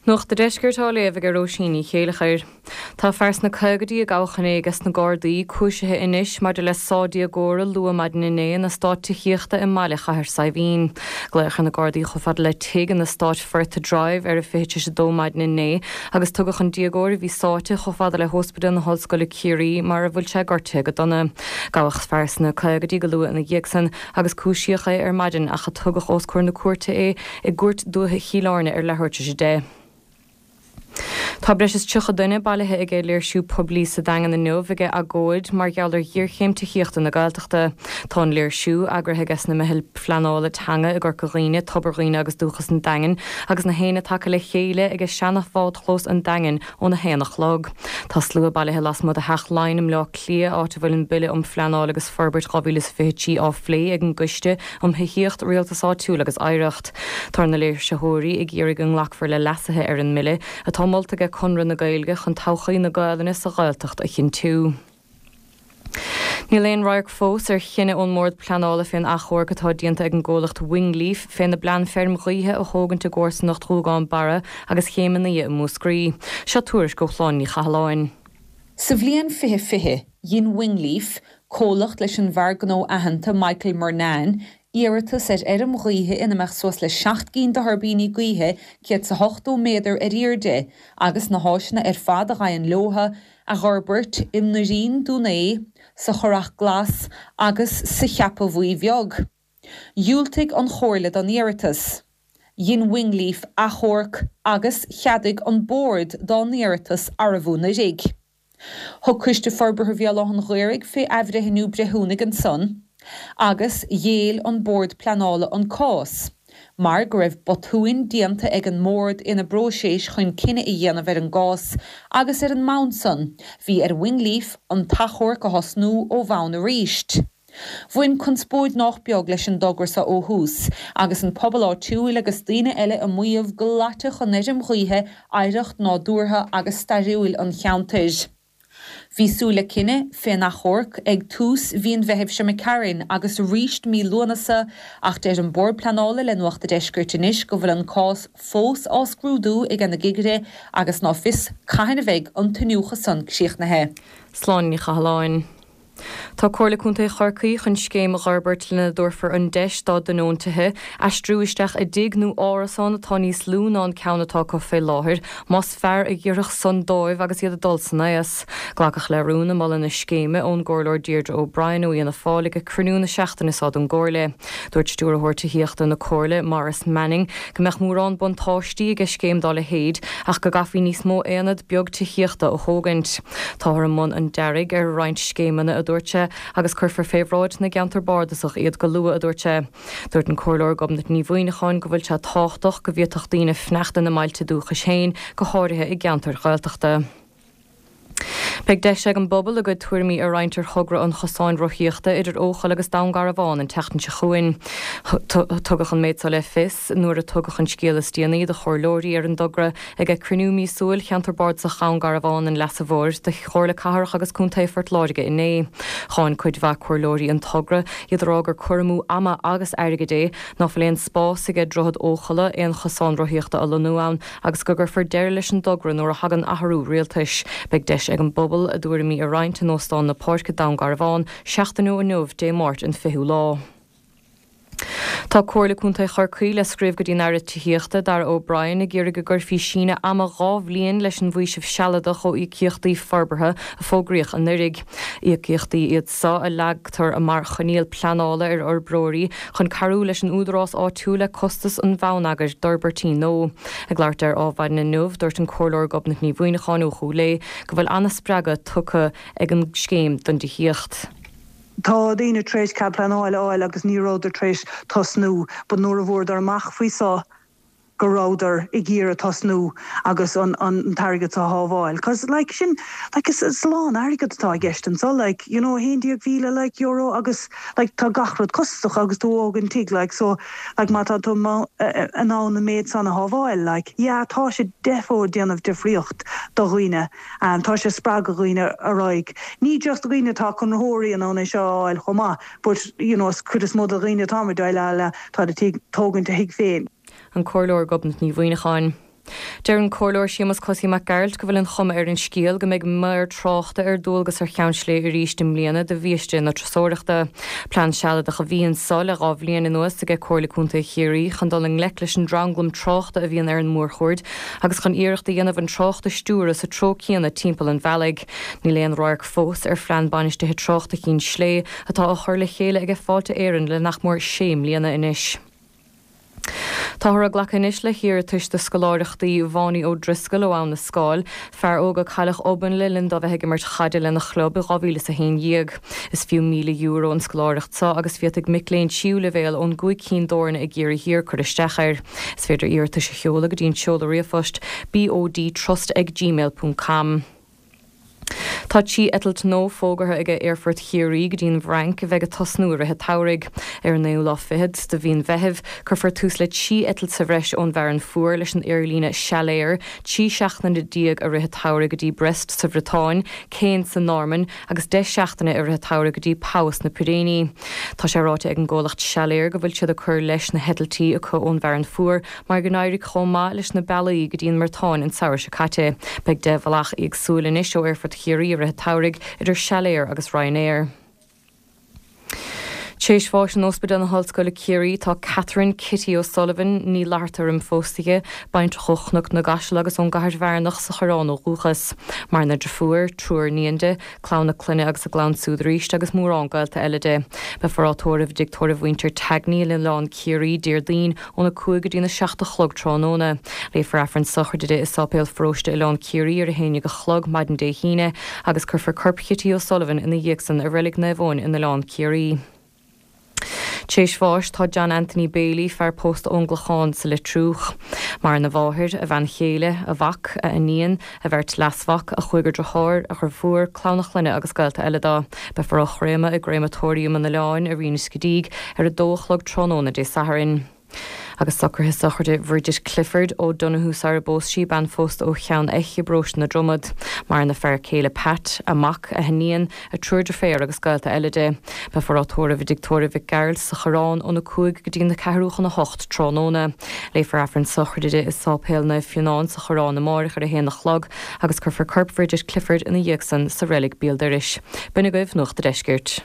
Nuacht a' Deiscirt á léamh ag Róisín Ní Chéileachair. Tá fear sna caogaidí a gabhadh inné ages na Gardaí cúisithe anois maidir le sá déagóra luath maidin inné in eastát tithíochta i mbaile Chathair Saidhbhín. Glaodh ar na Gardaí chomh fada le tigh in eastát Firth Drive ar a 1:40 maidin inné agus tugadh an déagóir a bhí sáite chomh fada le hÓspidéal na hOllscoile Ciarraí mar a bhfuil sé gortaithe go dona. Gabhadh fear sna caogaidí go luath ina dhiaidh san agus cúisíodh é ar maidin ach tugadh os comhair na cúirte é i gCúirt Dúiche Chill Airne ar leathuair tar éis 10. Tá breis is 30 duine bailithe aige léirsiú poiblí sa Daingean inniu aige agóid mar gheall ar ghéarchéim tithíochta na Gaeltachta. Tá an léirsiú, eagraithe aige na Meithil Phleanála Teanga i gCorca Dhuibhne, Tobar Dhuibhne agus Dúchas an Daingin, agus na hAoine tagtha le chéile aige seana-bhádchlós an Daingin óna haon a chlog. Tá slua bailithe lasmuigh de Theach Laighean i mBleá Cliath, áit a bhfuil an Bille um Phleanáil agus Forbairt 2023 á phlé ag an gCoiste um Thithíocht, Rialtas Áitiúil agus Oidhreacht. Tá na léirsitheoirí ag iarraidh go nglacfar le leasuithe ar an mbille, atá molta ag Conradh na Gaeilge chun todhchaí na Gaelainne sa Ghaeltacht a chinntiú. Níl aon radharc fós ar chinneadh ón mBord Pleanála fén achomharc atá déanta ag an gcomhlacht Wingleaf féna bplean feirm ghaoithe a thógaint i gcomharsanacht Ghuagán Barra agus Chéim an Fhia i Múscraí. Seo tuairisc ó Shláine Ní Chathalláin. Sa bhliain 2020, dhein Wingleaf, comhlacht leis an bhfear gnó aitheanta Michael Murnane, iarratas ar fheirm ghaoithe ina mbeadh suas le 7 gcinn de thuirbíní gaoithe 180 méadar ar airde agus na háiseanna ar fad a ghabhann leotha, a dh'fhorbairt i nDoirín Dún Aodha, sa Churrach Glas agus sa Cheapaigh Bhuí Bheag. Dhiúltaigh an Chomhairle don iarratas. Dhein Wingleaf achomharc agus cheadaigh an Bord dá n-iarratas arbh anuraidh. Thug Coiste Forbartha Bhéal Átha'n Ghaorthaidh fé athbhreithniú breithiúnaigh ansan agus ghéill an Bord Pleanála an cás mar go raibh botúin déanta ag an mBord ina bpróiseas chun cinneadh a dhéanamh ar an gcás agus ar an mbonn san bhí ar Wingleaf an t-achomharc a thosnú ó bhonn aríst. Bhain conspóid nách beag leis an dtogra so ó thús, agus an pobal áitiúil agus daoine eile ag maíomh go loitfeadh an fheirm ghaoithe oidhreacht nádúrtha agus stairiúil an cheantair. Bhí súil le cinneadh fén achomharc ag tús mhí an Mheithimh seo imigh tharainn agus aríst mí Lúnasa ach deir an Bord Pleanála le Nuacht a' Deiscirt anois go bhfuil an cás fós á scrúdú ag na cigirí agus ná fios cathain a bheidh an t-iniúchadh san críochnaithe. Sláine Ní Chathalláin. Tá Comhairle Contae Chorcaí chun scéim a dh'fhorbairt lena dtabharfar an deis dá dtionóntithe aistriú isteach i dtigh nó árasán atá níos lú ná an ceann atá acu fé láthair, más fearr a dh'oirfeadh san dóibh agus iad ag dul san aos. Glacadh le rún ag moladh na scéime ón gComhairleoir Deirdre O'Brien ó Fhianna Fáil ag cruinniú na seachtaine seo den gComhairle. Dúirt Stiúrthóir Tithíochta na Comhairle, Maurice Manning, go mbeadh mórán buntáistí aige scéim dá leithéid ach go gcaithfí níos mó aonad beag tithíochta a thógaint. Táthar i mbun an dearaidh ar roinnt scéimeanna, a dúirt sé, agus cuirfear fé bhráid na gceantar bardasach iad go luath, a dúirt sé. Dúirt an Comhairleoir Gobnait Ní Mhuineacháin go bhfuil sé tábhachtach go bhféadfadh daoine fanacht ina mbailte dúchais féin, go háirithe i gceantair Ghaeltachta. Beidh deis ag an bpobal a gcuid tuairimí a roinnt ar thogra an chosáin rothaíochta idir Eochaill agus Dún Garbhán an tseachtain seo chugainn. Tugadh an méid seo le fios nuair a tugadh an scéal is déanaí do chomhairleoirí ar an dtogra Ag cruinniú míosúil Cheantar Bardasach Dhún Garbhán an Leasa Mhóir de Chomhairle Cathrach agus Contae Phort Láirge inné, cháin cuid mhaith comhairleoirí an togra, iad ag rá gur cur amú ama agus airgid é, ná fuil aon spás aige Droichead Eochalla aon chosán rothaíochta a lonnú ann agus go gcuirfear deireadh leis an dtogra nuair a thagann athrú rialtais. Beidh deis ag an bpobal a dtuairimí a roinnt in Óstán na Páirce, Dún Garbhán, seachtain ó inniu, Dé Máirt an 20ú lá. Tá Comhairle Contae Chorcaí le scríobh go dtí an Aire Tithíochta, Darragh O'Brien, ag iarraidh go gcuirfí síneadh ama 2 bhliain leis an bhfaoiseamh sealadach ó íocaíochtaí forbartha a fógraíodh anuraidh. Íocaíochtaí iad seo a leagtar mar choinníoll pleanála ar fhorbróirí chun cabhrú leis an údarás áitiúil le costas an bhonneagair d'fhorbairtí nua. Ag labhairt ar Adhmhaidin inniu, dúirt an Comhairleoir Gobnait Ní Mhuineacháin ó Chúil Aodha go bhfuil an-spreagadh tugtha ag an scéim don dtithíocht. Tá daoine tar éis cead pleanála a fháil agus ní rabhadar tar éis tosnú but nuair a bhfuaireadar amach faoi so go rabhadar ag iarraidh tosnú agus an an t-airgead so a shábháil cos like sin like is is a lán airgead atá i gceist anso like you know 11,000 like euro agus like tá gach rud costasach agus tú ag tógaint tigh like so like má tá tú in ann an méid san a shábháil like yeah tá sé defo ag déanamh difríocht do dhaoine. Tá sé ag spreagadh dhaoine ar aghaidh. Ní just dhaoine atá conraitheoirí in ann é seo a fháil chomh maith but you know is cuid is mó de dhaoine atá ag déileáil le, tá ag tógaint a thigh féin. An Comhairleoir Gobnait Ní Mhuineacháin. Deir an Comhairleoir Séamus Cosaí Mac Gearailt go bhfuil an chuma ar an scéal go mbeidh maor tráchta ar dualgas ar Cheann Slé arís i mbliana de bhiaiste na turasóireachta. Plean sealadach a bhí anso le 2 bhliain anuas aige Comhairle Contae Chiarraí chun dul i ngleic leis an dtranglam tráchta a bhíonn ar an mórchuaird agus chun iarracht a dhéanamh an trácht a stiúradh sa treo céanna timpeall an bhealaigh. Níl aon radharc fós ar Phlean Bainistithe Tráchta Chinn Slé atá á chur le chéile aige Fáilte Éireann le nach mór sé mbliana anois. Táthar ag glacadh anois le hiarratais do scoláireachtaí Bháiní Ó Drisceoil ó Abha na Scáil, fear óg a cailleadh obann le linn dó bheith ag imirt chaide lena chlub i 2011. Is fiú €1,000 an scoláireacht seo agus féadfaidh mic léinn tríú leibhéal ón gcúig cinn d'fhoirne i gCiarraí Thiar cur isteach air. Is féidir iarratais a sheoladh go dtí an seoladh ríomhphoist bodtrust ag gmail ponc com. Tá 13 eitilt nua fógartha aige Aerfort Chiarraí go dtí an bhFrainc a bheidh ag tosnú i rith an tsamhraidh. Ar an naoú lá fichead de mhí an Mheithimh, cuirfear tús le 13 eitilt sa bhreis ón bhFearann Fuar leis an aerlíne Salair, 13 seachtaine i rith an tsamhraidh go dtí Brest sa Bhriotáin, Caen sa Normainn agus 10 seachtaine i rith an tsamhraidh go dtí Pau sna Piréiní. Tá sé ráite ag an gcomhlacht Salair go bhfuil siad ag cur leis na heitiltí acu ón bhFearann Fuar Mar go n-éirigh chomh maith leis na bealaí go dtí an mBriotáin an samhradh seo caite, beidh 10 bhealach éagsúil anois ó Aerfort Chiarraí i rith an tsamhraidh, idir Salair agus Ryanair. Tréis bháis in Ospidéal na hOllscoile Ciarraí tá Catherine Kitty O'Sullivan, Ní Fhlatharta roimh phósadh di, baintreach ó Chnoc na gCaiseal agus ón gCathair Bhearnach sa Choireán ó dhúchas. Maireann a driofúr, triúr iníon di, clann a clainne agus a gclann siúd arís agus mórán gaolta eile di. Beifear á tórramh i dtigh tórraimh mhuintir Tagney in Oileán Ciarraí, Déardaoin, óna 5 go dtína 7 a chlog tráthnóna. Léifear Aifreann sochraide di i Sáipéal Pharóiste Oileán Ciarraí ar a haon dhéag a chlog maidin Dé hAoine agus cuirfear corp Chití O'Sullivan ina dhiaidh san i Reilig Naomh Eoin in Oileán Ciarraí. Tréis bháis tá John Anthony Bailey, fear pósta ón gClochán sa Leitriúch. Maireann a mháthair, a bhean chéile, a mhac, a iníon, a bheirt leasmhac, a chúigear deartháir, a dhriofúr, clann a chlainne agus gaolta eile dó. Beifear á chréamadh i gCréamatóiriam an Oileáin i Rinn Scedeigh ar a dó a chlog tráthnóna Dé Sathairn. Agus socruithe sochraide Bhridget Clifford O'Donoghue sara bpós sí, bean phósta ó Cheann Eich i bparóiste na Dromad. Maireann a fear céile Pat, a mac, a hiníon, a triúr deirféar agus gaolta eile di. Beifear á tórramh i dTigh Tórraimh Mhic Gearailt sa Choireán óna 5 go dtí na ceathrú chun a hocht tráthnóna. Léifear Aifreann sochraide di i Sáipéal Naomh Fionán sa Choireán amáireach ar a haon a chlog agus cuirfear corp Bhridget Clifford ina dhiaidh san sa reilig béal dorais. B'in agaibh Nuacht a' Deiscirt.